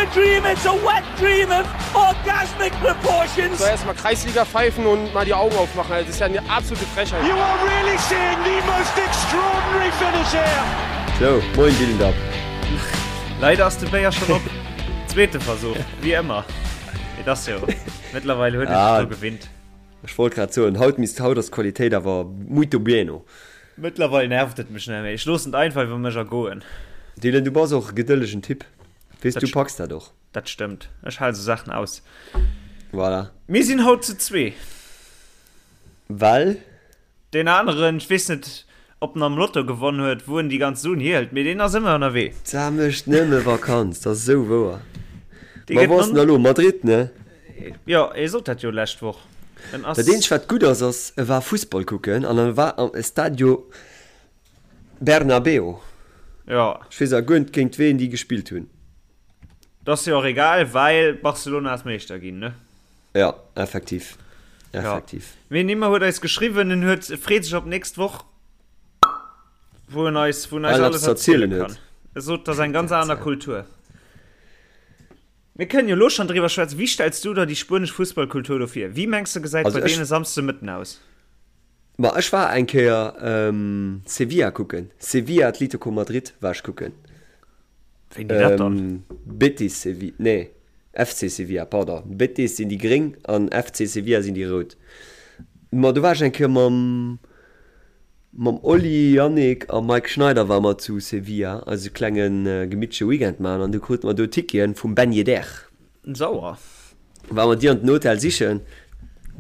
a dream, it's a wet dream of orgasmic proportions. So erstmal Kreisliga pfeifen und mal die Augen aufmachen, das ist ja eine absolute Frechheit. You are really seeing the most extraordinary finish here. Sou, moin Dylan Dab. Leider ass de Béier schon op. Zweete Versuch, wéi ëmmer. Mee dat ass jo, mëttlerweil huet ee sech dru gewinnt. Ech wollt grad soen, haut misst, haut ass d'Qualitéit awer muito bueno. Mëttlerweil nervt et mech net méi. Ech loossen et einfach iwwer mech ergoen. Dylan, du bass och e gedëllegen Typ. Weess, du packs dat och. Dat stëmmt. Ech hale sou Saachen aus. Voilà. Mir sinn haut zu zwee. Well? Deen aneren, ech weess net, ob en am Lotto gewonn huet, wou en déi ganz Suen hierhëlt, mee deen ass ëmmer ënnerwee. D'Sa mécht nëmme Vakanz, dat ass esou wouer. Ma wou ass en da lo? Madrid, ne? Jo, e sot dat jo lescht Woch. En ass. Dat eenzegt wat gutt ass, ass e war Fussball kucken an e war am Estadio Bernabeu. Jo. Ech weess awer guer net géint ween déi gespillt hunn. Dat ass jo och egal, well Barcelona ass Meeschter ginn, ne? Jo, effektiv. Effektiv. Jo. Mee Nimmer huet eis geschriwwen, en huet, freet sech op nächst Woch, wou en eis, wou en eis alles erziele kann. E sot, dat ass eng ganz aner Kultur. Mir kënnen jo elo schonn driwwer schwätzen. Wéi stells du der déi spuenesch Fussballkultur do vir? Wéi mengs de gesäit bei deene Samsdemëtten aus? Ma ech war eng Kéier Sevilla kucken. Sevilla Atlético Madrid war ech kucken. Wéini dat dann? Betis Sevilla, nee FC Sevilla, pardon. Betis sinn déi gréng an FC Sevilla sinn déi rout. Ma do war ech eng Kéier mam Mam Oli, Yannick a Mike Schneider ware mer zu Sevilla eise klenge gemittleche Weekend maachen an du krute mer do Ticketen vum Ben Yedder. Sauer. Ware mer déi an den Hotel sichen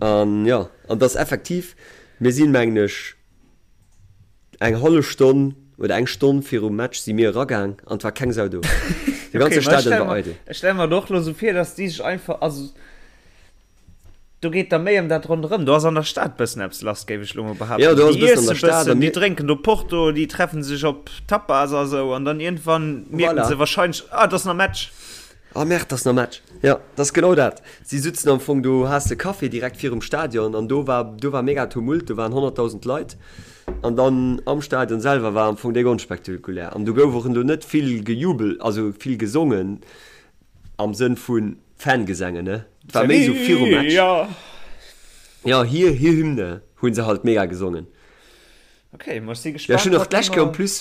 an jo, an et ass effektiv, mir sinn mengen ech eng hallef Stonn oder eng Stonn virum Match si mir eragaang an et war keng Sau do. De ganze Stadion war eidel. Ech stelle mer et och lo sou vir, dass déi sech einfach, also. Do geet da méi ëm dat ronderëm. Do ass an der Stad bëssen eppes lass, géif ech lo mol behaapten. Jo, do ass e Déi bëssen an der iesse Stad a bëssen, déi mir. drénken do Porto, déi treffen sech op Tapas a sou an dann iergendwann mierken Voilà. se wahrscheinlech, ah, et ass nach Match. Ah merde, et ass nach Match. Jo, dat ass genau dat. Si sutzen am Fong do, has de Café direkt virum Stadion an do war, do war mega Tumult, do waren 100.000 Leit an dann am Stadion selwer war am Fong déck onspektakulär an do gouf och elo net vill gejubelt, also vill gesongen. Am Sënn vu Fangesänge, ne? Et war méi esou virum Match. Jo, hir hir Hymne hu se halt mega gesongen. Ok, ma ech si Ja, ech gespaant, hunn och wat d'lescht Kéier en mer. plus,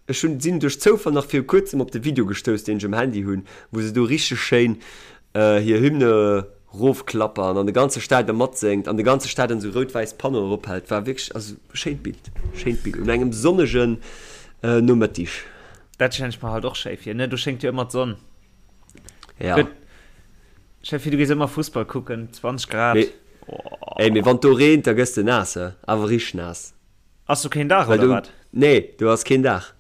ech hunn, sinn duerch Zoufall nach viru kuerzem op de Video gestouss, deen ech um Handy hunn, wou se do richteg schéin hir Hymne rofklappern an de ganze Stadion matséngt an de ganze Stadion esou rout-wäiss Panneauen erophält. War wierklech, also schéint Bild, schéint Bild un engem sonnegen Nomëttig. Dat stellen ech mer halt och schéi vir, ne? Do schéngt jo ëmmer d'Sonn. Ja. Gëtt, stell vir, du gees ëmmer Fussball kucken, 20 Grad. Mee, ey, mee wann do reent, da gëss de naass, he? Awer richteg naass. Ass do keen Daach Well oder do, wat? nee, do ass keen Daach.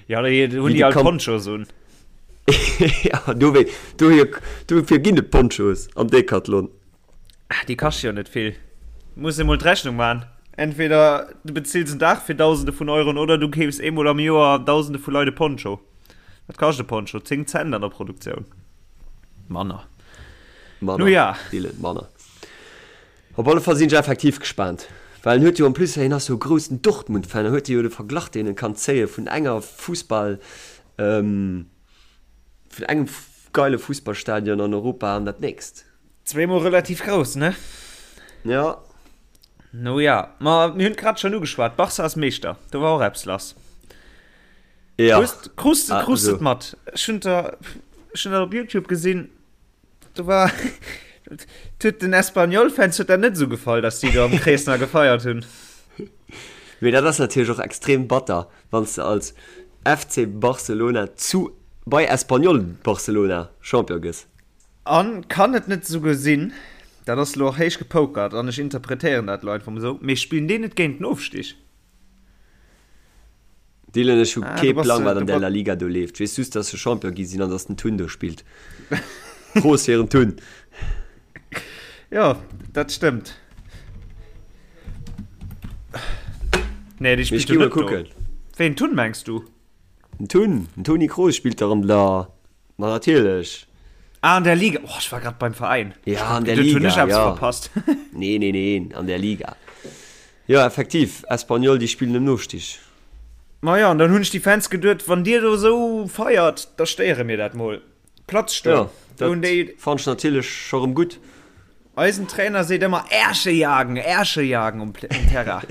Ja, da hunn Wéi déi de all Camp. Ponchos un. Ja, do wéi, dohier, dofir ginn et Ponchos am Decathlon. Ah, déi kaschte jo net vill. Muss ee mol d'Rechnung man. Entweder du bezills en Daach fir Dausende vun Euroen oder du keefs eemol am Joer Dausende vu Leit e Poncho. Wat kascht e Poncho? 10 Cent an der Produktioun. Manner. Manner, Nu ja. Dylan, manner. Op alle Fall sinn ech effektiv gespaant, well en huet jo en plus, hien ass jo e groussen Dortmund-Fan, en huet jo de Verglach deen en kann zéie vun enger Fussball, vun engem geile Fussballstadion an Europa an dat nächst. Zweemol relativ grouss, ne? Ja. No ja, ma mir hunn grad schon ugeschwat, Barca ass Meeschter, do war och eppes lass. Ja. Krus, krus, Ah, krus also. et mat. Ech hunn der, ech hunn dat op YouTube gesinn, do war, huet den Espanyol-Fans huet dat net esou gefall, dass déi do am Krees nach gefeiert hunn. Mee dat ass natierlech och extrem batter, wann s de als FC Barcelona zu, bei Espanyol Barcelona Champion gëss. An kann et net esouguer sinn, dat ass elo och héich gepokert an ech interpretéieren dat elo einfach mol esou, mee spillen déi net géint den Ofstig? Dylan, ech hu Ah, kee du bass, Plang wat du an der ba La Liga do leeft. Ech weess just dass se Champion gi sinn an dass den Tun do spillt. Prost fir den Tun! Jo, dat stëmmt. Nee, déi Mee ech spillt gi jo mol net do. kucken. Ween, Tun mengs du? Den Tun, den Toni Kroos spillt dach an der Ma natierlech. Ah, an der Liga. Oh, ech war grad beim Veräin. Ja, an der Geduet, hunn Liga, ech eppes ja. verpasst. Nee, nee, nee, an der Liga. Jo, effektiv, Espanyol, déi spillen ëm Nostig. Ma jo, an dann hunn ech déi Fans geduet, wann dir do esou feiert, da stéiere mir dat mol. Platz stoen. Ja, dat fannt ech natierlech scho rëm gutt. Eisen Trainer seet ëmmer Ärsche jagen, Ärsche jagen um Terrain.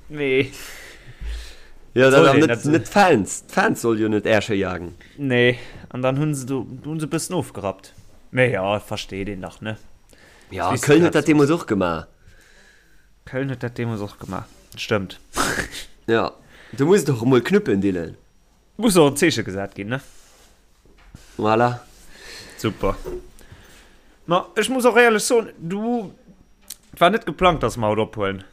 Mee. Ja, dat awer net, net d'Fans. D'Fans solle jo net Ärsche jagen. Nee, an dann hunn se do, hunn se e bëssen ofgerappt. Mee jo, versteet een dach, ne? Ja, Köln huet dat deemools och gemaach. Köln huet dat deemools och gemaach, stëmmt. Ja, do muss et och emol knuppen, Dylan. Muss och en Zeeche gesat ginn, ne? Voilà. Super. Ma ech muss och éierlech soen, du, et war net geplangt, dass mer haut ophuelen.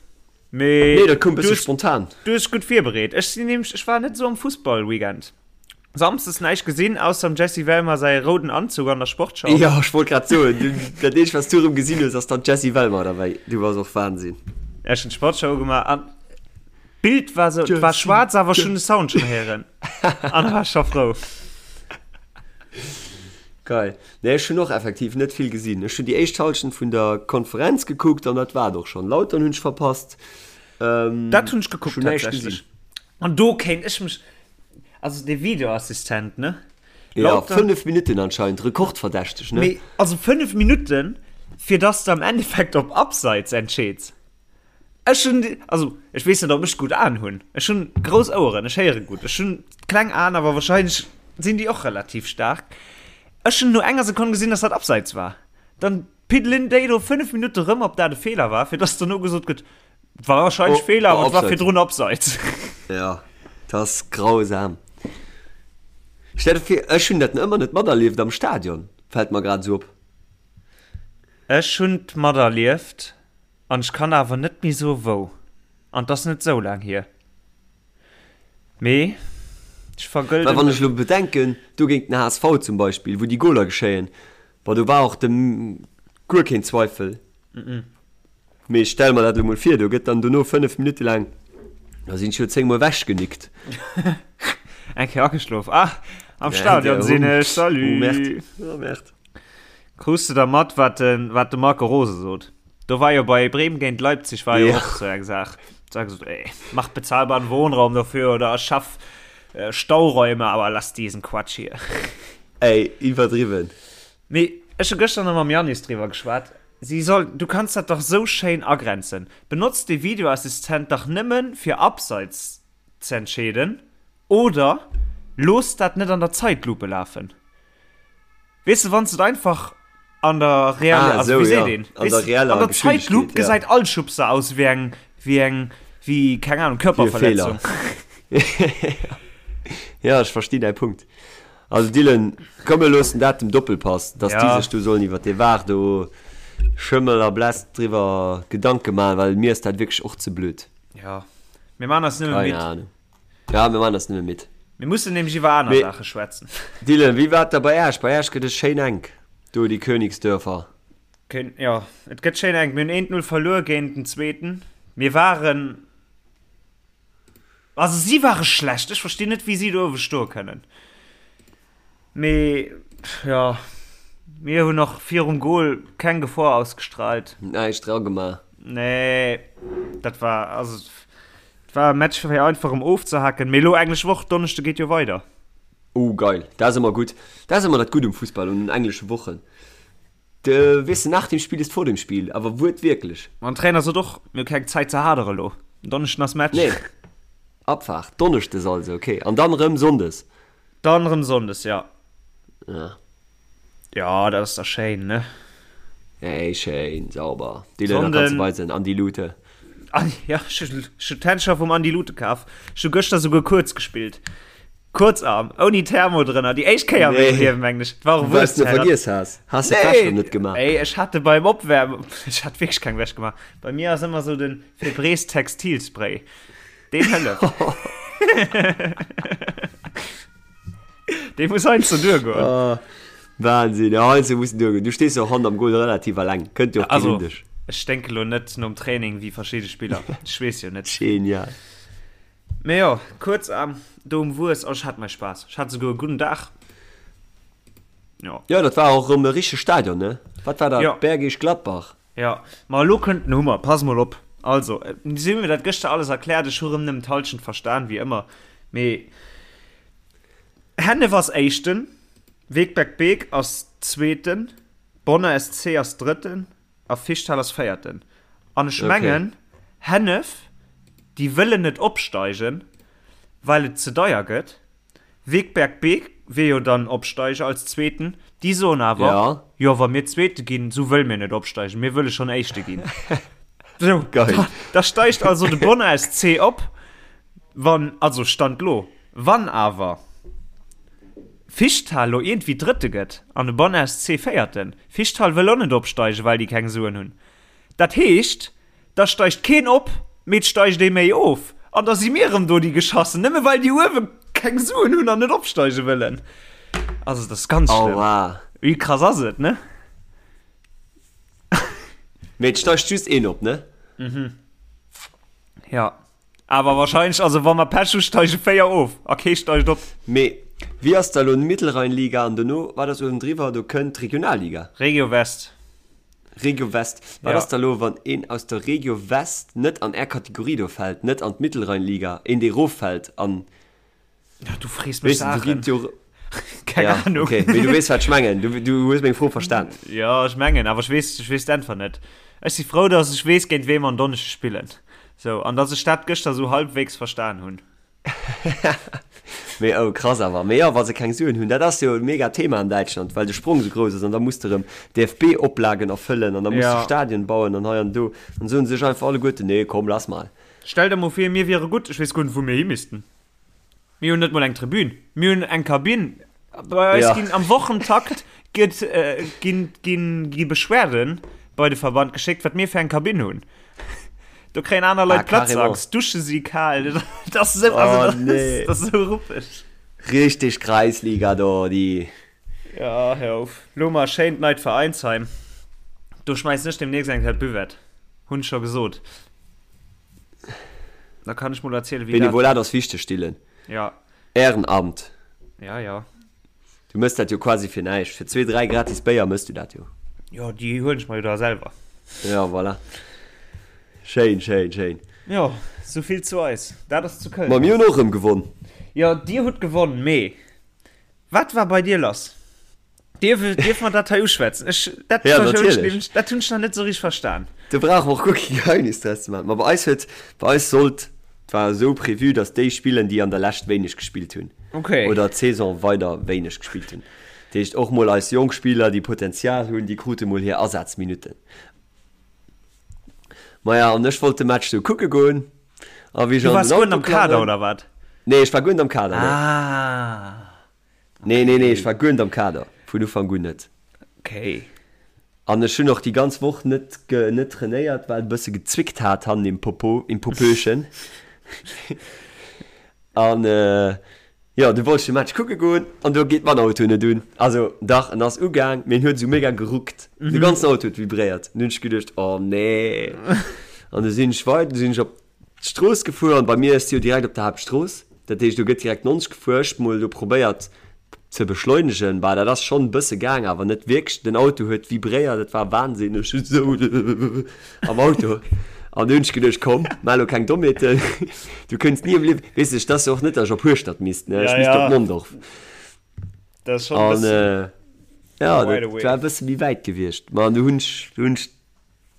Mee Nee, dat koum bësse spontan. Du hues gutt virbereet. Ech sinn nämlech, ech war net esou am Fussball-Weekend. Samsdes näischt gesinn, ausser dem Jessy Wellmer säi rouden Anzug an der Sportschau. Jo, ech wollt grad soen, du, dat eenzegt, wat s du erëm gesinn hues, ass dann d'Jessy Wellmer derbäi. Du bass och Wahnsinn. Ech hunn d'Sportschau ugemaach an d'Bild war sou, et war schwaarz, awer ech hunn de Sound schonn héieren an da war ech scho frou. Geil. Nee, ech hunn och effektiv net vill gesinn. Ech hunn déi éischt Hallschent vun der Konferenz gekuckt an dat war et och schonn. Lautern hunn ech verpasst. Dat hunn ech gekuckt tatsächlech. An do kéint ech mech, also dee Videoassistent, ne? Ja, 5 Minutten anscheinend, rekordverdächteg, ne? Mee also 5 Minutten, fir dass de am Endeffekt op Abseits entscheeds. Ech hunn, also ech weess net, ob ech gutt Aen hunn. Ech hunn grouss Oueren, ech héiere gutt. Ech hunn kleng Aen, awer wahrscheinlech sinn déi och relativ staark. Ech hunn no enger Sekonn gesinn, dass dat Abseits war. Dann piddelen déi do 5 Minutte rëm, ob dat e Feeler war, fir dass dono gesot gëtt, War wahrscheinlech oh, Feeler, awer et war virdrun Abseits. Ja, dat ass grausam. Stell dir vir, ech hunn dat ëmmer net materlieft am Stadion, fält mer grad esou op. Ech hunn et materlieft an ech kann awer net méi soe wou. An 't ass net sou laang hier. Mee ech vergëlden. Well wann ech elo bedenken, do géint den HSV zum Beispill, wou déi Goler geschéien, bon do war och de guer keen Zweifel. Mee ech stelle mer dat elo mol vir, do gëtt dann dono 5 Minutte laang, da sinn ech jo 10 mol ewechgenickt. Eng Kéier ageschlof. Ah, am Stadion sinn ech, salut! Oh Merde, oh Merde. Krus de da mat, wat de, wat de Marco Rose sot? Do war jo bei Bremen géint Leipzig war jo och sou eng Saach. Do hat gesot, ey, mach bezahlbaren Wohnraum dafür oder schaff äh, Stauräume, aber lass diesen Quatsch hier. Ey, iwwerdriwwen. Mee ech hu gëschter nach mam Yannis driwwer geschwat. Si soll, du kanns dat dach sou schéin agrenzen. Benotz de Videoassistent dach nëmmen fir Abseits ze entscheeden oder looss dat net an der Zeitlupe lafen. Weess de, wann s de et einfach an der reeller, ah, also wéi seet een, an der reeller an der Zeitlupe gesäit all Schubser aus wéi eng, wéi eng, wéi, keng Ahnung, Körperverletzung. Ja, ech verstinn däi Punkt. Also Dylan, komm mir loossen dat dem Doppelpass, dass déi sech do sollen iwwer dee Var do Schëmmel a Bless driwwer Gedanke maachen, well mir ass dat wierklech och ze blöd. Ja, mir maachen eis nëmme midd. Keine Ahnung. Ja, mir maachen eis nëmme midd. Mir mussen nämlech iwwer aner Saache schwätzen. Dylan, wéi war et da bei Äech? Bei Äech gëtt et schéin enk do, déi Königsdörfer. Jo, et gëtt schéin enk. Mir hunn eent Null verluer géint den Zweeten. Mir waren. Also si ware schlecht, ech verstinn net wéi si do uewe stoe kënnen. Mee jo, mir hunn och virum Goal keng Gefor ausgestrahlt. Näischt dra gemaach. Nee, dat war also et war e Match fir einfach erëm ofzehaken. Mee elo englesch Woch, Donneschde geet jo weider. Oh geil, dat ass ëmmer gutt. Dat ass ëmmer dat Gutt um Fussball, un den englesche Wochen. De weess de, nach dem Spiel ist vor dem Spiel, awer wuertwierklech. An Trainer sot och, mir hu keng Zäit ze hadere lo, en Donneschden ass Match. Nee, Abfahrt, Donneschdes also, ok. An dann rëm Sonndes? Dann rëm Sonndes, ja. Ja. Ja, dat ass da schéin, ne? Ey, schéin, sauber. Déi Lëner kanns de weisen, Andi Lute. Ja, ech hu d'Händscher vum Andi Lute kaf. Ech hu gëschter souguer kuerz gespillt. Kuerzarm, ouni Thermo drënner, déi éischt Kéier a mengem Liewen, mengen ech. Et war och Well s de vergiess has. Has de d'Wäsch rëm net gemaach? Ey, ech hat de beim Opwäermen, ech hat wierklech keng Wäsch gemaach. Bei mir ass ëmmer sou den Febreze Textilspray, deen hëlleft. Dee muss heiansdo duergoen. Oh, Wahnsinn, ja, heiansdo muss en duergoen. Du stees jo och hannert am Goal relativ alleng, kënnt jo och keen un dech. Also, ech sténke lo net nom Training wéi verschidde Spiller, ech weess jo net. Genial. Mee jo, kuerz am do um Wues, oh ech hat mei Spaass, ech hat souguer e gudden Dag. Jo. Jo, dat war och erëm e richtege Stadion, ne? Wat war dat? Jo. Bergisch Gladbach? Jo, ma elo kënnt den Hummer, pass mol op. Also, si hu mir dat gëschter alles erkläert, ech hu rëm nëmmen d'Halschent verstan, wéi ëmmer, mee Hennef ass Éischten. Wegberg Beek ass Zweeten, Bonner SC ass Drëtten a Fischthal ass Véierten. An ech mengen, Hennef, déi wëllen net opsteigen, well et ze deier gëtt. Wegberg Beek wier jo dann Opsteiger als Zweeten. Déi soen awer, Jo, wa mir Zweete ginn, sou wëlle mir net opsteigen, mir wëlle schonn Éischte ginn. Sou, da steigt also de Bonner SC op, wann, also Stand lo, wann awer Fischthal lo iergendwéi Drëtte gëtt an de Bonner SC Véierten. Fischthal wëll och net opsteigen, well déi keng Suen hunn. Dat heescht, Da steigt keen op, mee et steigt ee méi of. An da si mir erëm do déi Geschassen, nëmme well déi uewe keng Suen hunn an net opsteige wëllen. Also dat ass ganz schlëmm. Aua. Wéi krass ass et, ne? Mee et steigt just een op, ne? Mhm. Ja. Awer wahrscheinlech, also wa mer Pech hu steige 4 of a kee steigt op. Mee wéi ass da elo d'Mittelrheinliga an dono, wat ass uewendriwwer? Do kënnt d'Regionalliga. Regio West. Regio West. Wat ass da elo, wann een aus der Regio West net an är Kategorie do fält, net an d'Mittelrheinliga, een dee eroffält an. Ja, du frees mech Saachen. Keng ja, Ahnung. Okay. Mee du weess, wat ech mengen. Du, du hues meng Fro verstan. Ja, ech mengen, awer ech weess, ech weess d'Äntwert net. Ech si frou, dass ech weess, géint wee mer en Donneschdeg spillen. So, an dass ech dat gëschter sou halbwegs verstan hunn. Mee oh, krass awer. Mee jo, wa se keng Suen hunn, dat ass jo e mega Thema an Däitschland, well de Sprong sou grouss ass an da muss de erëm DFB-Oplagen erfëllen an da muss de Ja. Stadien bauen an hei an do. An soen se sech einfach alleguerten, nee, komm, lass mal. Stell der mol vir, mir wiere gutt, ech weess guer net, wou mir hi missten. Mir hunn net mol eng Tribün. Mir hunn eng Kabinn. Bei eis ja. ginn am Wochentakt gëtt, äh, ginn, ginn, gi Beschwerden bei de Verband geschéckt, wat mir fir eng Kabinn hunn. Do kréien aner Leit ah, Platzangst, Dusche si kal. Das ist so, also, oh, das, nee. das ist so ruppeg. Richtig Kreisliga do, déi. Ja, hör auf. Lo mal schéint neit Veräinsheim. Do schmeißen ech demnächst eng Kéier d'Buvette. Hunn ech scho gesot. Da kann ech mol erzielen, wéi dat. Benevolat ass wichteg, Dylan. Ja. Ehrenamt. Ja, ja. Du mëss dat jo quasi fir näischt. Fir zwee, dräi gratis Béier mëss du dat jo. Jo, déi huelen ech mer jo da selwer. Ja, voilà. Schéin, schéin, schéin. Jo, souvill zu eis. Dat ass zu Köln. Ma mir hunn och erëm gewonn. Jo, dir hutt gewonn, mee wat war bei dir lass? Dierf, dierf mer dat hei uschwätzen? Ech, dat, Ja, hunn ech natierlech. nämlech, dat hunn ech nach net esou richteg verstan. Do brauche mer och guer kee Geheimnis draus ze maachen. Ma bei eis huet, bei eis sollt, et war esou prévu, datt déi spillen, déi an der Lescht wéineg gespillt hunn. Okay. Oder d'Saison weider wéineg gespillt hunn. Dat heescht, och mol eis jonk Spiller, déi Potenzial hunn, déi krute mol hir Asazminutten. Maja, an ech wollt de Match du kucke goen. A wéi ech Du an waars den guer net Auto am Kader, klammen. oder wat? Nee, ech war guer net am Kader, nee. Ah. Nee, nee, nee, ech war guer net am Kader, vun Ufank un net. Okay. An ech hunn och déi ganz Woch net net trainéiert, well et e bësse gezwickt hat hannen im Popo, im Popöchen. An jo, du wollt ech de Match kucke goen an do geet mäin Auto net un. Also dach, en ass ugaang, mee en huet esou mega geruckt. De ganzen Auto huet vibréiert. An du hunn ech geduecht, oh nee. An du sinn ech weider, du sinn ech op D'Strooss gefuer an bei mir ass jo direkt op der Haaptstrooss, dat heescht do gëtt direkt 90 gefuer. Ech mol do probéiert ze beschleunegen, bah dat ass schonn e bësse gaang, awer net wierklech. Den Auto huet vibréiert, et war Wahnsinn, ech hunn esou am Auto an du hunn ech geduecht, komm maach elo keng Dommheeten, du kënns ni am Liewen, weess ech, et ass jo och net, datt ech op Hueschtert misst, ne, ech misst op Mondorf. An jo, dat war e bësse méi wäit gewiescht, ma du hunn ech, du hunn ech.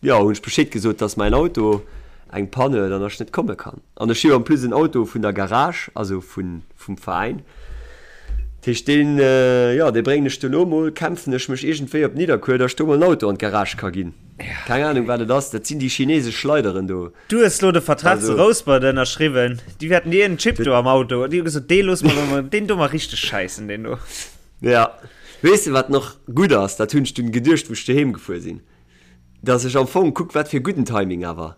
Jo, hunn ech Bescheed gesot, dass mäin Auto eng Panne huet an dass ech net komme kann. An ech hu jo en plus en Auto vun der Garage, also vun, vum Veräin. Dat heescht, deen, jo, dee bréngen ech duerno mol, kämpfen ech mech iergendwéi op Nidderkuer, dass ech do mol en Auto an d'Garage ka ginn. Keng Ahnung, wat et ass. Dat sinn déi chinesesch Schleideren do. Du hues lo de Vertrag zu Rouspert ënnerschriwwen. Déi wäerten dir en Chip do am Auto. Déi hu gesot, dee loosse mer do, deen do mar richteg schäissen, deen do. Ja. Weess de, wat nach gutt ass? Dat hunn ech dunn geduecht, wou ech doheem gefuer sinn. Dass ech am Fong, kuck wat fir gudden Timing awer.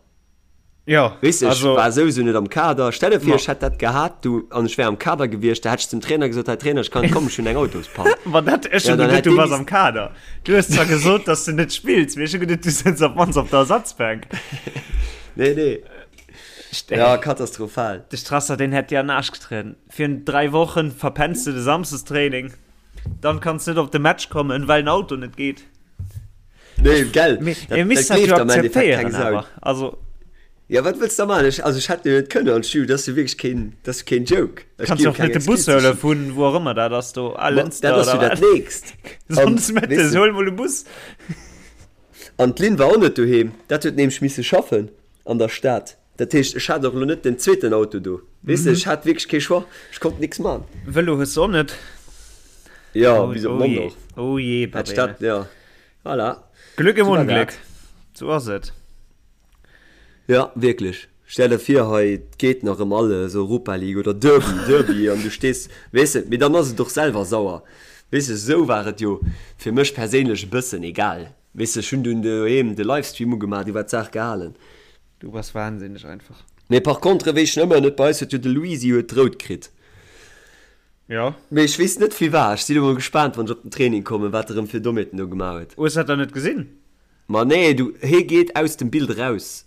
Jo, Weess de, ech war souwisou net am Kader. Stell der vir, ech hätt dat gehat du an ech wär am Kader gewiescht, da hätt ech zum Trainer gesot, hei Trainer, ech kann net kommen, ech hunn eng Autospann. Ma dat, ech hunn geduet, du bass am Kader. Du hues zwar gesot, dass du net spills, mee ech hu geduet, du sëtz op d'mannst op der Ersatzbänk. Nee, nee. Ja, katastrophal. De Strasser, deen hätt dir an den Aarsch getrieden. Virun 3 Wochen verpenns du de Samsdestraining, dann kanns du net op de Match kommen, well den Auto net geet. Nee, gell. Mir, dat, mir misst dat jo akzeptéieren awer. Also. Ja, wat wëlls de da maachen? Ech, also ech hätt jo net kënnen an d'Studio, dat ass jo wierklech keen, dat ass jo keen Joke. Ech Kanns gi jo jo och keng net de Bus Excuse. huele vun wou och ëmmer dat ass do, Ma Lënster dat ass oder jo dat wat. Nächst. An, Sonndes weess mëttes, de, huel mol e Bus. an d'Lynn war och net doheem, dat huet nämlech misse schaffen an der Stad. Dat heescht, ech hat och elo net den zweeten Auto do. Weess de, ech hat wierklech kee Choix, ech konnt nix man. Vëlo hues de och net? Jo, Oh, bis op oh je, Mondorf. oh je, Hätt ech Babene. dat, ja. Voilà. Glück im Sou war Unglück, dat. sou ass et. Ja, wierklech. Stell der vir, hei et geet nach ëm alles, Europa League oder Derby, Derby, an du stees, weess de, mee dann ass et och selwer sauer, weess de. Esou war et jo fir mech perséinlech e bëssen egal, weess de. Ech hunn dunn doheem de Livestream ugemaach, du war d'Saach gehalen. Du bass wahnsinneg einfach. Mee par contre, wéi ech ëmmer net bei eis huet jo de Luisi huet rout kritt. Jo. Mee ech weess net firwat. Ech sinn elo mol gespaant, wann ech op den Training kommen, wat e rëm fir Dommheeten do gemaach huet. Hues dat dann net gesinn? Ma nee, du, hee geet aus dem Bild eraus.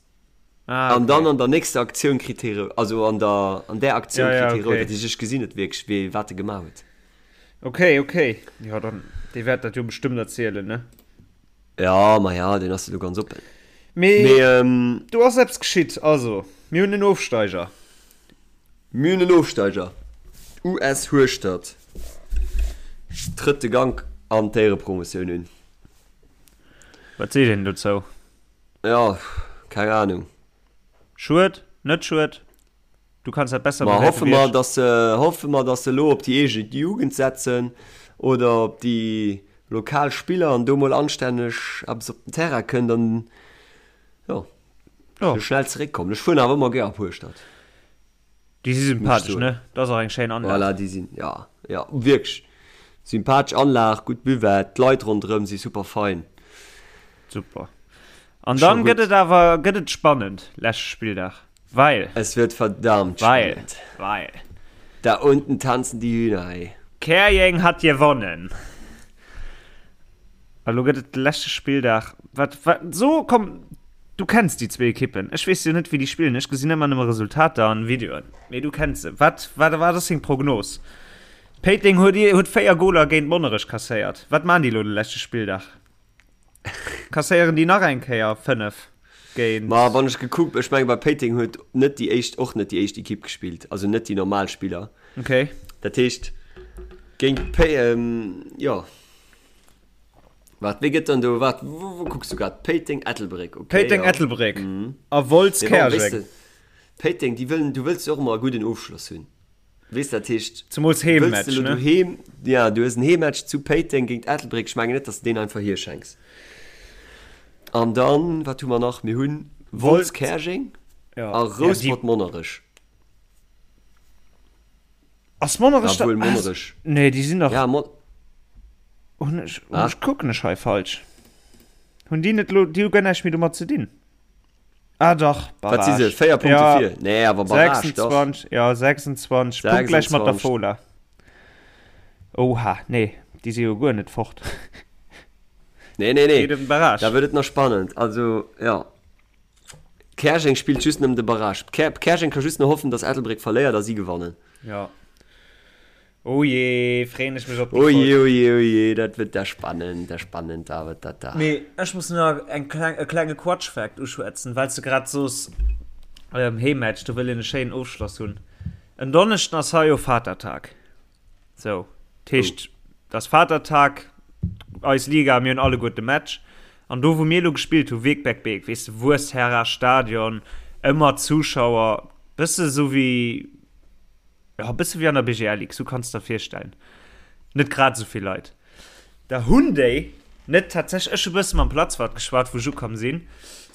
Ah, An dann okay. an der nächster Aktioun kritt hee rou, also an der, an där Aktioun Ja, ja, kritt hee rout. okay. Dat heescht, ech gesinn net wierklech, wéi, wat e gemaach huet. Okay, okay. Jo, dann, dee wäert dat jo bestëmmt erzielen, ne? Ja, ma ja, deen ass jo do ganz oppen. Mee, Mee, ähm. do ass eppes geschitt. Also, mir hunn en Ofsteiger. Mir hunn en Ofsteiger. US Hueschtert trëtt de Gank an d'Éierepromotioun un. Wat seet een dozou? Jo, keng Ahnung. Schued? Net schued? Du kanns dat besser Ma bewäerte hoffe wéi mer, ech. dass se, hoffe mer, dass se elo op déi eege Jugend setzen oder op déi lokal Spiller an do mol anstänneg eppes op den Terrain kënnt an, jo, Jo. se schnell zeréckkommen. Ech fueren awer ëmmer gär op Hueschtert. Déi si sympathesch, ne? Dat ass och eng schéin Anlag. Voilà, déi sinn, ja, ja, wierklech sympathesch Anlag, gutt Buvette, d'Leit ronderëm si super fein. Super. An dann gëtt et awer, gëtt et spannend, leschte Spilldag, well. Es wird verdammt weil, spannend. Weil. Da unten tanzen die Hühner, ey. Käerjeng hat gewonnen. A lo gëtt et de leschte Spilldag. Wat, wat, so, komm, du kenns déi zwee Ekippen. Ech weess jo net, wéi déi spillen. Ech gesinn ëmmer nëmme Resultater an Videoen. Mee du kenns se. Wat, wat, wat ass deng Prognos? Péiteng huet, huet 4 Goler géint Monnerech kasséiert. Wat maan déi lo de leschte Spilldag? Kasséieren déi nach eng Kéier 5 géint. Ma wann ech gekuckt, ech menge bei Péiteng huet net déi éischt, och net déi éischt Ekipp gespillt, also net déi normal Spiller. Okay. Dat heescht géint Pé, jo. Waart, wéi gëtt dann do, waart, wou, wou kucks du grad? Péiteng, Ettelbréck, okay. Péiteng, ja. Ettelbréck mm. a Wolz, Mee bon, weess Käerjeng. de, Péiteng, déi wëllen, du wëlls jo och ëmmer e gudden Ofschloss hunn. Weess dat heescht, Zemools wëlls de Heemmatch, elo ne? doheem, ja, du hues en Heemmatch zu Péiteng géint Ettelbréck, ech mengen net, dass de deen einfach hierschenks. An dann, wat hu mer nach? Mir hunn Wolz, Wolz, Käerjeng ja. a Ja, déi Rouspert, Monnerech. Ass Monnerech da? Obwuel Monnerech. Nee, déi sinn dach. Ja, Mon. Hunn ech, hunn Ah. ech, kucken ech hei falsch? Hunn déi net lo, déi hu guer näischt méi domat ze dinn. Ah dach, Wat si se? Barrage. 4 Punkte Ja, vir? Nee, awer Barrage, dach. 26, ja, 26, punktgläich mat der 26. Fola. Oha, nee, déi si jo guer net fort. Nee, nee, nee. Geet ëm den Barrage. Da wërt et nach spannend. Also, ja. Käerjeng spillt just ëm de Barrage. Käerjeng ka just nach hoffen, dass Ettelbréck verléiert a si gewannen. Ja. Oh jee, freeën ech mech op déi Oh Folg. jee, oh jee, oh jee, dat wërt da spannend, da spannend, da wërt dat da. Mee ech muss nach eng kleng, e klenge Quatsch-Fact uschwätzen, well s de grad soos, Heemmatch, do wëll een e schéinen Ofschloss hunn. En Donneschden ass hei jo Vatertag. Sou, dat heescht, et ass Vatertag, eis Liga, mir hunn alleguer de Match. An do, wou mir elo gespillt hu, Wegberg-Beek, weess de, Wuessherra Stadion, ëmmer Zuschauer, bësse sou wéi, jo, bësse wéi an der BGL Ligue, sou kanns de der virstellen, net grad esou vill Leit. Da hunn déi net tatsächlech, ech hu bësse mam Platzwart geschwat, wou ech ukomm sinn,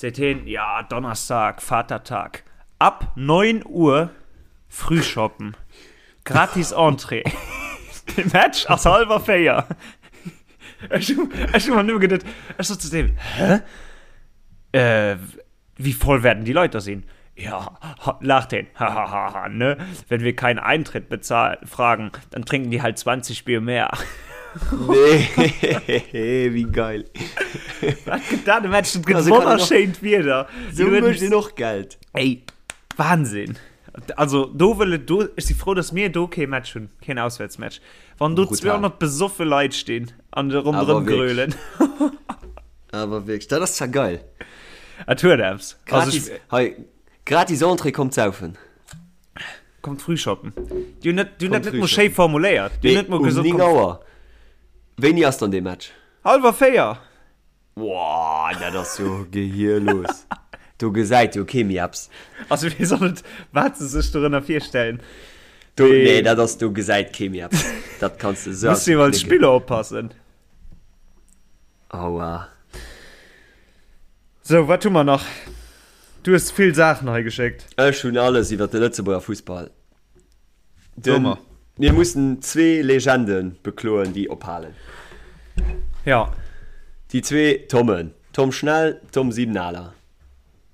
seet hien, jo, Donnerstag, Vatertag, ab 9 Uhr Frühschoppen. Gratis Entrée. De Match ass halwer 4. Ech hu, ech hu mer nëmme geduet, ech sot zu deem, Hä? Äh, wie voll werden die Leute da sinn? Ja, ha, laacht heen, hahaha, ne? Wenn wir keinen Eintritt bezahlen, fragen, dann trinken die halt 20 Bier mehr. Nee, wéi geil. Wat gëtt dat e Match? Dat gëtt Also kann een och- wonnerschéint Wieder. Sou mécht een och Geld. Ey, Wahnsinn! Also do wëll et do, ech si frou, datt mir do kee Match hunn, keen Auswäertsmatch. Wann do Brutal. 200 besoffe Leit stinn an de ronderëm Awer wierklech. grölen. Awer wierklech, dat ass zwar geil. Et huet eppes. Also Gratis, ech, hei, Gratis Entrée, kommt saufen. Kommt früh shoppen. Déi hunn net, déi hunn dat net mol schéi formuléiert. Déi hunn net mol gesot, um 9 Auer. Wéini ass dann dee Match? Hallwer 4. Woah, dat ass jo gehierlos. Do gesäit jo kee méi eppes. Also wéi soll et, wat se sech dorënner virstellen? Do, nee, dat ass, do gesäit kee méi eppes. Dat kanns de esou Muss jo als Spiller oppassen. Aua. Sou, wat hu mer nach? Du hues vill Saachen hei geschéckt. Ech hunn alles iwwer de Lëtzebuerger Fussball. Den, mir mussen zwee Legende bekloen, déi ophalen. Ja. Déi zwee Tommen, Tom Schnell, Tom Siebenaler.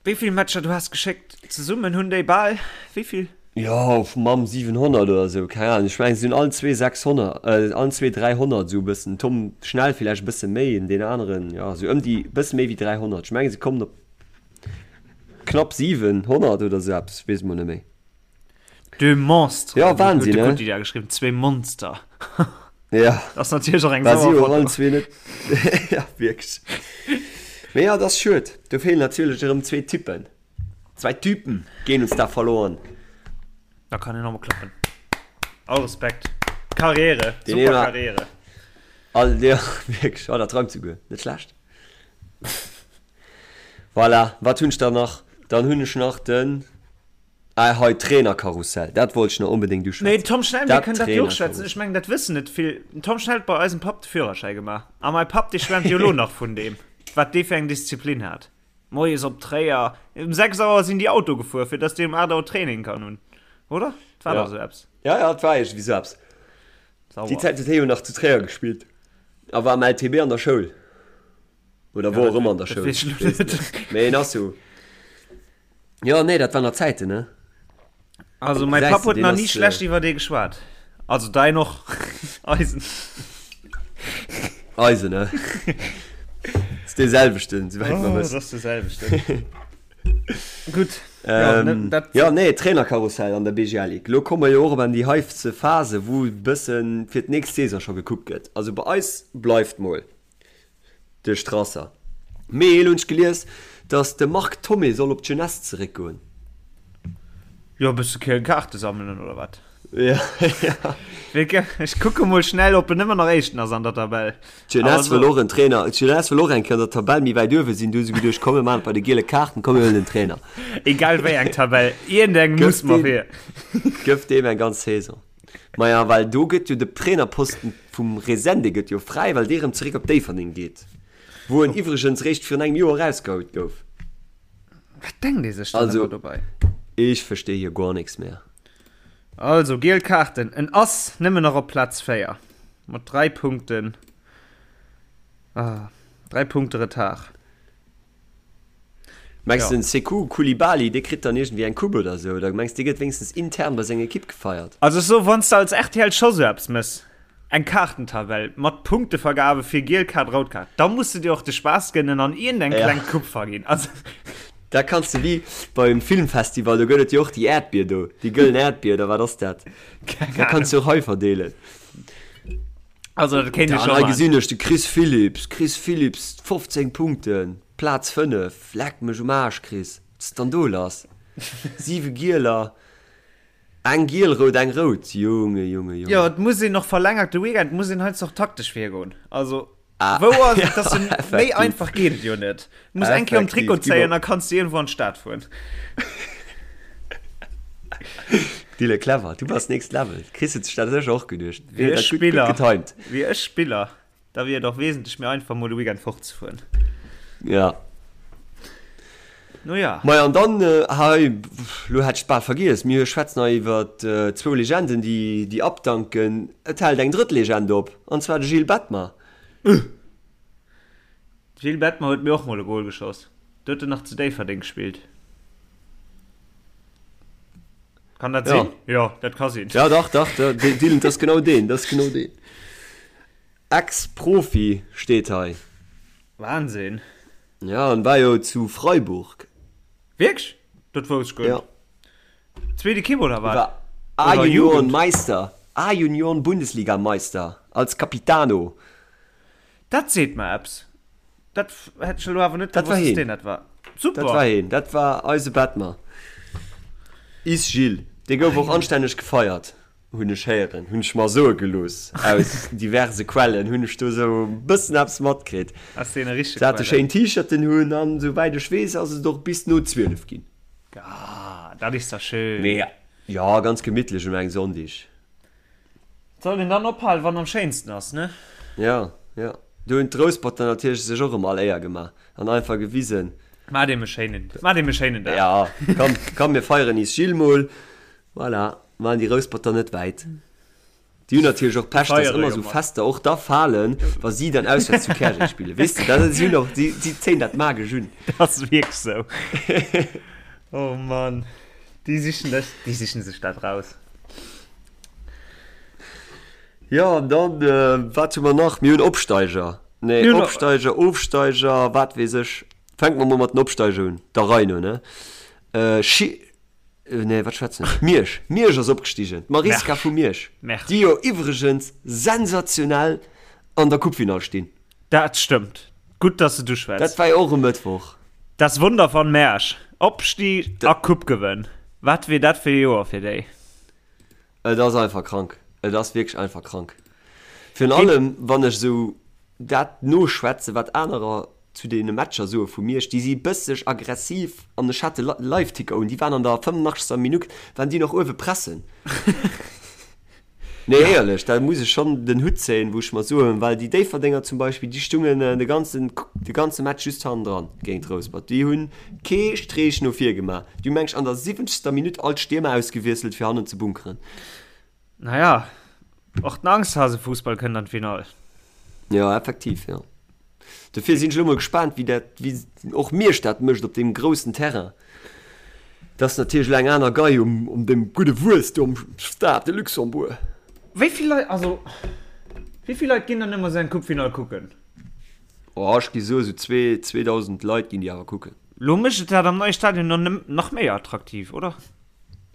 Wéi vill Matcher du has geschéckt? Zesummen hunn déi bal wéi vill? Jo, mam 700 oder esou, keng Ahnung. Ech mengen, se hunn allen zwee 600, allen zwee 300 esou e bëssen. Tom Schnell villäicht e bësse méi, en deen aneren, jo, esou ëm déi, bësse méi wéi 300. Ech mengen, se kommen op knapp 700 oder esou eppes, weess mol net méi. Deux monstres. Ja, Wahnsinn, ne? Huet de Gutti geschriwwen, zwee Monster. Ja. Das ass natierlech och eng sauer Foto. Allen zwee net. Ja, wierklech. Mee ja, dat ass schued. Do feelen natierlech erëm zwee Typen. Zwei Typen gehen uns da verloren. Da kann een nochmol klappen. All Respekt. Karriere. Den Super Karriere. All, ja, wierklech. Oh, dat reimt souguer. Net schlecht. Voilà, wat hunn ech dann nach? Dann hunn ech nach den. Ah, hei, Trainerkarussell, dat wollt ech nach onbedéngt uschwätzen. Nee, Tom Schnell, mir kënnen dat jo och schwätzen. Ech mengen, dat wëssen net vill. Den Tom Schnell huet bei eisem Papp de Führerschäi gemaach. A mäi Papp, dee schwäermt jo elo nach vun deem, wat dee fir eng Disziplin hat. Moies op Tréier, um 6 Auer sinn déi Auto gefuer, fir dass dee um 8 Auer Training kann hunn. Oder? Et war dach esou eppes. Ja, ja, et war iergendwéi esou eppes. Déi Zäit huet hie jo nach zu Tréier gespillt a war am LTB an der Schoul. Oder wor och ëmmer an der Schoul. Mee en ass jo. Jo, nee, dat waren nach Zäiten, ne? Also mäi Papp huet nach ni schlecht iwwer dee geschwat. Also dein och. Eisen. Eisen, ne? Ass dee selwechten, souwäit mer wëssen. Oh, ass dee selwechten. Gutt. Ähm, ja, nee, Trainerkarussell an der BGL Ligue. Lo komme mer jo och op an déi heifste Phase, wou e bëssen fir d'nächst Saison scho gekuckt gëtt. Also bei eis bleift mol. De Strasser. Mee elo hunn ech gelies, datt de Marc Thomé soll op d'Jeunesse zeréckgoen. Jo, e bësse Kaarte sammelen oder wat? Ja, ja. Ech kucke mol schnell, ob en ëmmer nach Éischten ass an der Tabell. D'Jeunesse wëll och en Trainer. D'Jeunesse wëll och eng Kéier an der Tabell méi wäit uewe sinn. Du hu se geduecht, komm mir maachen et bei de giele Kaarten, komm mir huelen en Trainer. Egal wéi eng Tabell, iergendeng muss mer fir. Gëff deem eng ganz Saison. Maja, well do gëtt jo de Trainerposten vum Resende gëtt jo fräi, well dee rëm zeréck op Déifferdeng geet, wou en iwwregens réischt virun engem Joer erausgehoult gouf. Wat denkt ee sech dann ëmmer dobei? Also, ech verstehe hier guer nix mehr. Also, giel Kaarten, en ass nëmmen nach op Plaz 4 mat 3 Punkten, ah, 3 Punkte Retard. Mengs de den Sekou Coulibaly dee kritt dann iergendwéi eng Coupe oder sou? Oder mengs dee gëtt wéinstens intern bei senger Ekipp gefeiert? Also ech soen, wann s de als rtl scho sou eppes mëss, eng Kaartentabell mat Punktevergabe fir giel Kaart, rout Kaart, da muss de dir och de Spaass gënnen an iergendeng kleng Coupe verginn. Also. Da kanns de wéi beim Filmfestival, do gëtt et jo och déi Äerdbier do, déi gëllen Äerdbier oder wat ass dat? Keng Ahnung. Da kanns de och hei verdeelen. Also dat kéint ech scho maachen. Hei gesinn ech de Chris Philipps, Chris Philipps 15 Punkten, Plaz 5, leck mech um Aarsch Chris, wat ass dann do lass? 7 Gieler, eng giel-rout, eng rout, Junge, Junge, Junge. Jo, et muss een och verlängert de Weekend, muss een heiansdo och taktesch virgoen. Also wou ass et, dass en méi einfach geet et jo net. Du muss eng Kéier um Trikot zéien, da kanns du iergendwou an d'Stad fueren. Dille clever, du bass next level. Chris huet sech dat sécher och geduecht. Wier ech Spiller, getimed. Wier ech Spiller, da wier et och wesentlech méi einfach mol de Weekend fortzefueren. Ja. No ja. Maja an dann hei, lo hätt ech et bal vergiess, mir schwätzen hei iwwer zwou Legenden déi déi abdanken. Et hält eng drëtt Legend op, an zwar de Gilles Bettmer. Gilles Bettmer huet mir och mol e Goal geschoss. Do huet en nach zu Déifferdeng gespillt. Kann dat sinn? Jo, dat ka sinn. Ja, dach, dach, Dylan, dat ass genau deen, dat ass genau deen. Ex-Profi steet hei. Wahnsinn. Ja, en war jo zu Freiburg. Wierklech? Dat wousst ech guer net. Ja. Zweet Ekipp oder wat? War A-Junioren Meister, A-Junioren Bundesliga Meister als Capitano. Dat seet mer eppes. Dat hätt ech elo awer net gewosst, dass deen dat war. Super! Dat war heen, dat war eise Bettmer. Is Gilles, dee gouf och anstänneg gefeiert, hunn ech héieren, hunn ech mer soe gelooss. Aus diverse Quellen hunn ech do sou e bëssen eppes matkritt. Aus deene richtege Se hate Quellen. schéin T-Shirten hunn an souwäit ech weess ass et och bis no 12 ginn. Ah, dat is da schön. Mee jo, ganz gemittlech un engem Sonndeg. Soll een dann ophalen, wann am schéinsten ass, ne? Jo, jo. Do hunn d'Rousperter natierlech sech och erëm all Éier gemaach an einfach gewisen. Maacht eem e schéinen, maacht eem e schéinen Dag. Jo, komm, komm mir feieren is Gilles mol. Voilà, waren déi Rousperter net wäit. Déi hunn natierlech och Pech, dass ëmmer esou Fester och da falen, wa si dann auswäerts zu Käerjeng spillen. Weess de, dat si hunn och, si, si zéien dat magesch un. Dat ass wierklech esou. Oh Mann, déi sichen dech, déi sichen sech dat raus. Jo, an dann, wat hu mer nach? Mir hunn Opsteiger. Nee, Opsteiger, Ofsteiger, wat weess ech. Fänke mer mol mat den Opsteiger un, der Rei no, ne? Schi, nee, wat schwätzen ech? Miersch, Miersch ass opgestigen, d'Mariska vu Miersch, déi jo iwwregens sensationell an der Coupefinall stinn. Dat stëmmt. Gutt, dass de du schwätz. Dat war jo och e Mëttwoch. Das Wunder von Mersch. Opstieg a Coupe-Gewënn. Wat wier dat fir e Joer fir déi? Et ass einfach krank. Et ass wierklech einfach krank. Virun allem, wann ech esou dat noschwätzen, wat anerer zu deene Matcher soe vu Miersch, déi si bësseg aggressiv an ech hat de Liveticker un, déi waren an der 85. Minutt waren déi nach uewe pressen. Nee, éierlech, da muss ech schonn den Hutt zéien, wou ech mer soen, well déi Déifferdenger zum Beispill, déi stungen de ganzen, de ganze Match just hannendran géint Rouspert. Déi hunn kee Streech no vir gemaach. Déi hu meng ech an der siwwenzegster Minutt all d'Stiermer ausgewiesselt, fir hannen ze bunkeren. Naja, och den Angsthasefussball kënnt an d'Finall. Jo, effektiv, jo. Dofir sinn ech elo mol gespaant, wéi dat, wéi och Miersch dat mécht op deem groussen Terrain. Dat ass natierlech elo eng aner Gei um, um deem gudde Wuess do am Stade de Luxembourg. Wéi vill Leit, also wéi vill Leit ginn dann ëmmer esou eng Coupe-Finall kucken? Oh, ech gi soe sou zwee, 2.000 Leit ginn déi awer kucken. Lo mécht et dat am neie Stadion dann nach méi attraktiv, oder?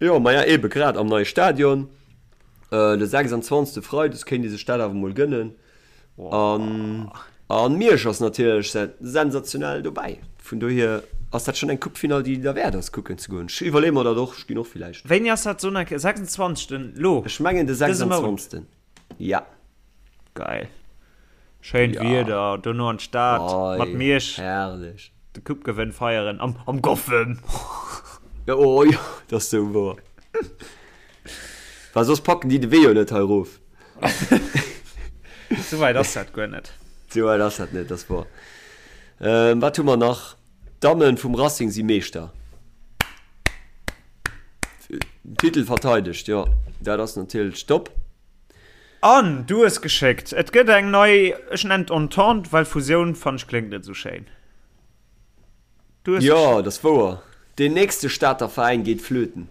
Jo, maja ebe grad am neie Stadion, de 26. Freides kéint ee sech dat awer mol gënnen. An an Miersch ass natierlech sensationell dobäi. Vun dohier ass dat schonn eng Coupe-Finall, déi derwäert ass kucken ze goen. Ech iwwerleeë mer dat och, ech ginn och villäicht. Wéini ass dat soen eng 26. Lo? Ech mengen de Dëse Mount? 26. Ja. Geil. Schéint Ja. Wieder, dono an d'Stad mat Ei, Miersch herrlech. de Coupe-Gewënn feieren am am Goffen. Ja, oh jo, dat ass sou wouer. Well soss packen déi de Wee jo net hei erof. Sou wäit ass dat guer net. Sou wäit ass dat net, dat ass wouer. Ähm, wat hu mer nach? D'Damme vum Racing si Meeschter. Titel verteidegt, jo. Dat ass natierlech top. An du hues geschéckt, et gëtt eng nei, ech nennen et Entente, well Fusioun fannen ech kléngt net esou schéin. Du hues Jo, dat ass wouer. Deen nächste Stater Veräin geet flöten.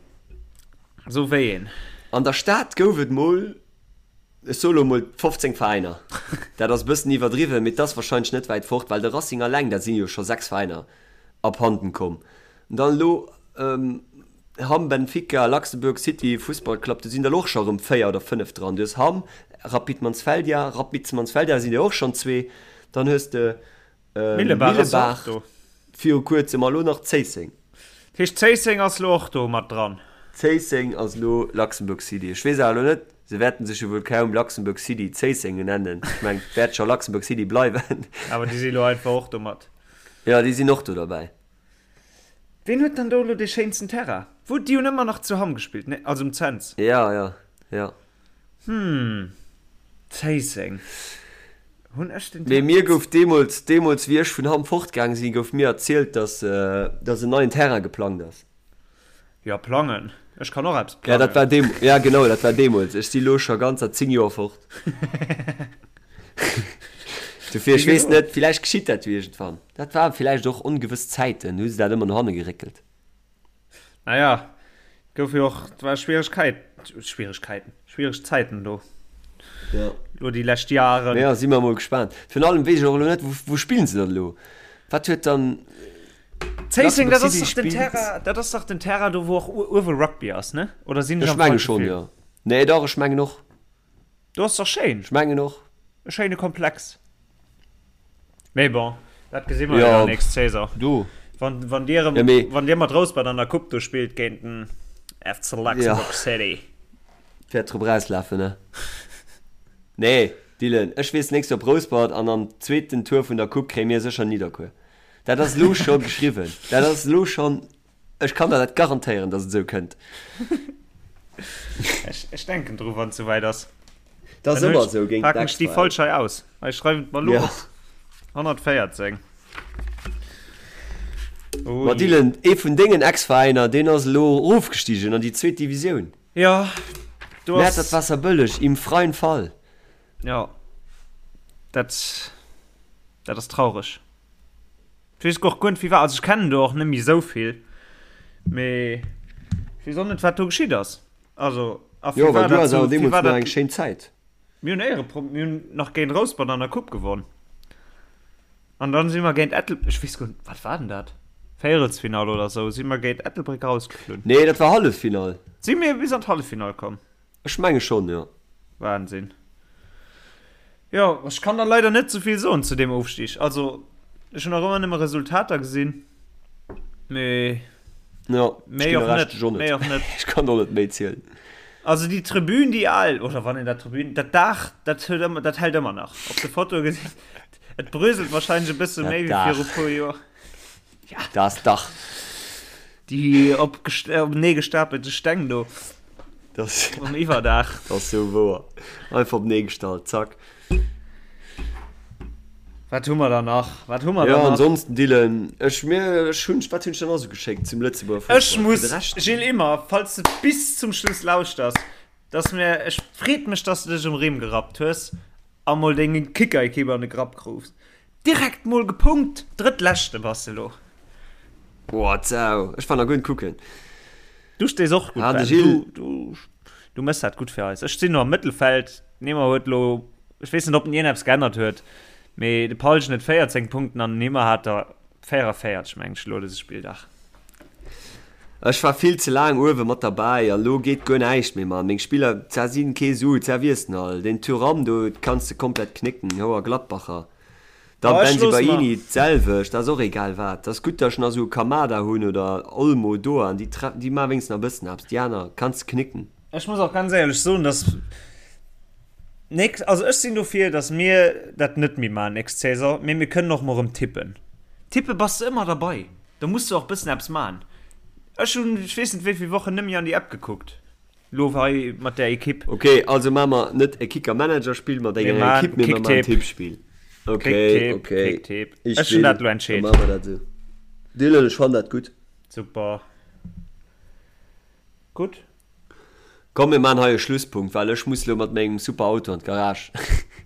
Sou wéi een. An der Stad gouf et mol, ech soe lo mol 15 Veräiner. Dat ass e bëssen iwwerdriwwen, mee 't ass warscheinlech net wäit fort, well de Racing alleng, dat si jo scho 6 Veräiner abhanden komm. An dann elo Hamm, Benfica, Luxembourg City Fussball Club, do sinn der elo och scho erëm 4 oder 5 dran. Du hues Hamm, Rapid Mansfeldia, Rapid Mansfeldia sinn der och schonn zwee. Dann hues de Millebaach ass och do. Viru kuerzem a lo nach Zéisseng. Dat heescht Zéisseng ass lo och do mat dran? Zéisseng ass lo Luxembourg City. Ech weess awer elo net, se wäerten sech jo wuel kaum Luxembourg City Zéisseng nennen. Ech mengen, et wäert scho Luxembourg City bleiwen. Awer déi si lo einfach och do mat. Jo, déi sinn och do derbäi. Ween huet dann do elo dee schéinsten Terrain? Wou, déi hunn ëmmer nach zu Hamm gespillt, ne? Also um Cents. Jo, jo, jo. Hm, Zéisseng. Hunn ech den Mee mir gouf deemools, deemools wéi ech vun Hamm fortgaang sinn, gouf mir erzielt, dass, dass en neien Terrain geplangt ass. Jo, plangen. Ech kann och eppes Ja, dat plangen. war deem, ja genau, dat war deemools. Ech si lo scho ganzer 10 Joer fort. Dofir, ech Wéi weess gesot. net, villäicht geschitt dat jo iergendwann. Dat waren villäicht och ongewëss Zäiten, hu se dat ëmmer no hanne geréckelt. Naja, gouf jo och, et war Schwieregkeit, Schwieregkeiten, schwiereg Zäiten do. Ja. Lo déi lescht Jaren. Ja, si mer mol gespaant. Virun allem weess ech och elo net, wou, wou spillen se dann elo? Wat huet dann Zéisseng, Luxembourg dat ass City dach den spillt? Terrain, dat ass dach den Terrain do, wou och uewe Rugby ass, ne? Oder sinn ech Ech am menge falsche schonn, Film? jo. Nee, dach, ech mengen och. Do ass dach schéin. Ech mengen och. E schéine Komplex. Mee bon, dat gesi mer jo Ja, dann nächst Saison. do. Wann, wann Dir, Ja, mee. wann Dir mat Rouspert an der Coupe do spillt géint den. FC Luxembourg City. Wäert drop erauslafen, ne? Nee, Dylan, ech weess, nächst Joer op Rouspert an am zweeten Tour vun der Coupe kréie mir sécher Nidderkuer. Dat ass elo scho geschriwwen. Dat ass elo schonn, ech kann der dat garantéieren, datt et esou kënnt. Ech, ech denken dru wann et souwäit ass. Dat ass ëmmer esou géint Packen ech déi Folg hei aus. Ech schreiwen et mer elo op. 114. Oh Ma Dylan, ee vun dengen Ex-Veräiner, deen ass elo erofgestigen an déi zweet Divisioun. Jo, do ass. Mäertert Waasserbëlleg im freien Fall. Jo, dat, dat ass traureg. Ech weess och guer net, wéi war. Also ech kennen do och net méi esou vill, mee ech weess och net, wat do geschitt ass. Also, a Jo, well du has awer deemools nach eng schéin Zäit. Mir hunn Éierepro, mir hunn nach géint Rouspert an der Coupe gewonn. An dann si mer géint Ettel, ech weess guer net, wat war denn dat? Véierelsfinall oder esou, si mer géint Ettelbréck rausgeflunn. Nee, dat war Halleffinall. Si mir bis an d'Halleffinall komm? Ech menge schonn, jo. Wahnsinn. Jo, ech kann der leider net souvill soen zu deem Ofstig. Also, ech hunn nach ëmmer nëmme Resultater gesinn, mee Jo, ech méi ginn och der net, Recht, ech och net. méi och net. Ech kann och net méi zielen. Also déi Tribün, déi al, oder wann een dat Tribün, dat Daach, dat huet ëmmer, dat hält ëmmer nach. Op de Fotoe gesinn, et bröselt wahrscheinlech e bësse Dat méi wéi Daach. viru puer Joer. Ja. Das Dach. Déi openee gestapelte Steng do. Das, um Iwwerdaach. Das ass sou wouer. Einfach openee gestallt, zack. Wat hu mer da nach? Wat hu mer da nach? Jo, ansonsten, Dylan, ech, mir, ech hunn, wat hunn ech dann nach sou geschéckt zum Lëtzebuerger Fussball? Ech muss, Gilles Immer, falls de bis zum Schluss lauschters, dass mir, ech freet mech, dass de dech um Rimm gerappt hues a mol deng Kicker-Ekipp an de Grapp krufs. Direkt mol gepunkt, Drëttleschte bass de lo. Boah, d'Sau. Ech war nach guer net kucken. Du stees och gutt, Ah, de Ben. Gilles. Du, du, du mëss dat gutt fir eis. Ech sinn no am Mëttelfeld. Neymar huet lo, ech weess net, ob den ierneps geännert huet, mee de Paulsen huet 14 Punkten an den Neymar hat der 44, mengen ech, lo dëse Spilldag. Ech war vill ze laang uewe mat derbäi a lo geet guer näischt méi, Mann. Meng Spiller, za sinn kee Su, za wiers den all. Den Thuram do kanns de komplett knécken, Houer Gladbacher. Da Oh, ech looss mer. Bensebaini d'selwecht, ass och egal wat. Ass gutt, datt ech nach esou e Kamada hunn oder Olmo, Doan, déi tre déi maache wéinstens nach e bëssen eppes, déi aner kanns de knécken. Ech muss och ganz éierlech soen, dass nächst, also ech sinn dofir, dass mir dat net méi maachen nächst Saison, mee mir kënnen och mol erëm tippen. Tippe bass de ëmmer derbei, da muss de och bëssen eppes maachen. Ech hunn, ech weess net wéi vill Wochen net méi an déi App gekuckt. Lo hei mat där Ekipp. Ok, also maache mer net e Kicker-Manager-Spill mat enger Ekipp, mee mer maachen en Tippspill. Ok, ok. Kicktipp. Ech hunn dat elo entscheet. Da maache mer dat esou. Dylan, ech fannen dat gutt. Super. Gutt. Komm, mir maachen hei e Schlusspunkt, well ech muss elo mat mengem super Auto an d'Garage.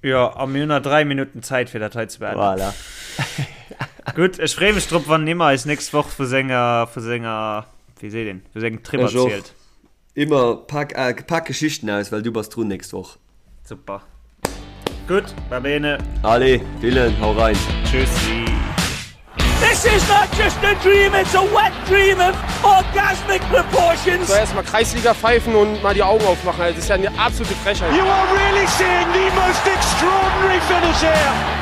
Jo, a mir hunn nach 3 Minutten Zäit, fir dat hei ze beenden. Voilà. Gutt, ech freeë mech drop, wann Nimmer eis nächst Woch vu senger, vu senger, wéi seet een, vu sengem Trip Ech och. erzielt. Immer pak, äh, pak Geschichten aus, well du bass drun nächst Woch. Super. Gutt, va bene. Allez, Dylan, hau rein. Tschüssi. This is not just a dream, it's a wet dream of orgasmic proportions. So erstmal Kreisliga pfeifen und mal die Augen aufmachen. Das ist ja eine absolute Frechheit. You are really seeing the most extraordinary finish here.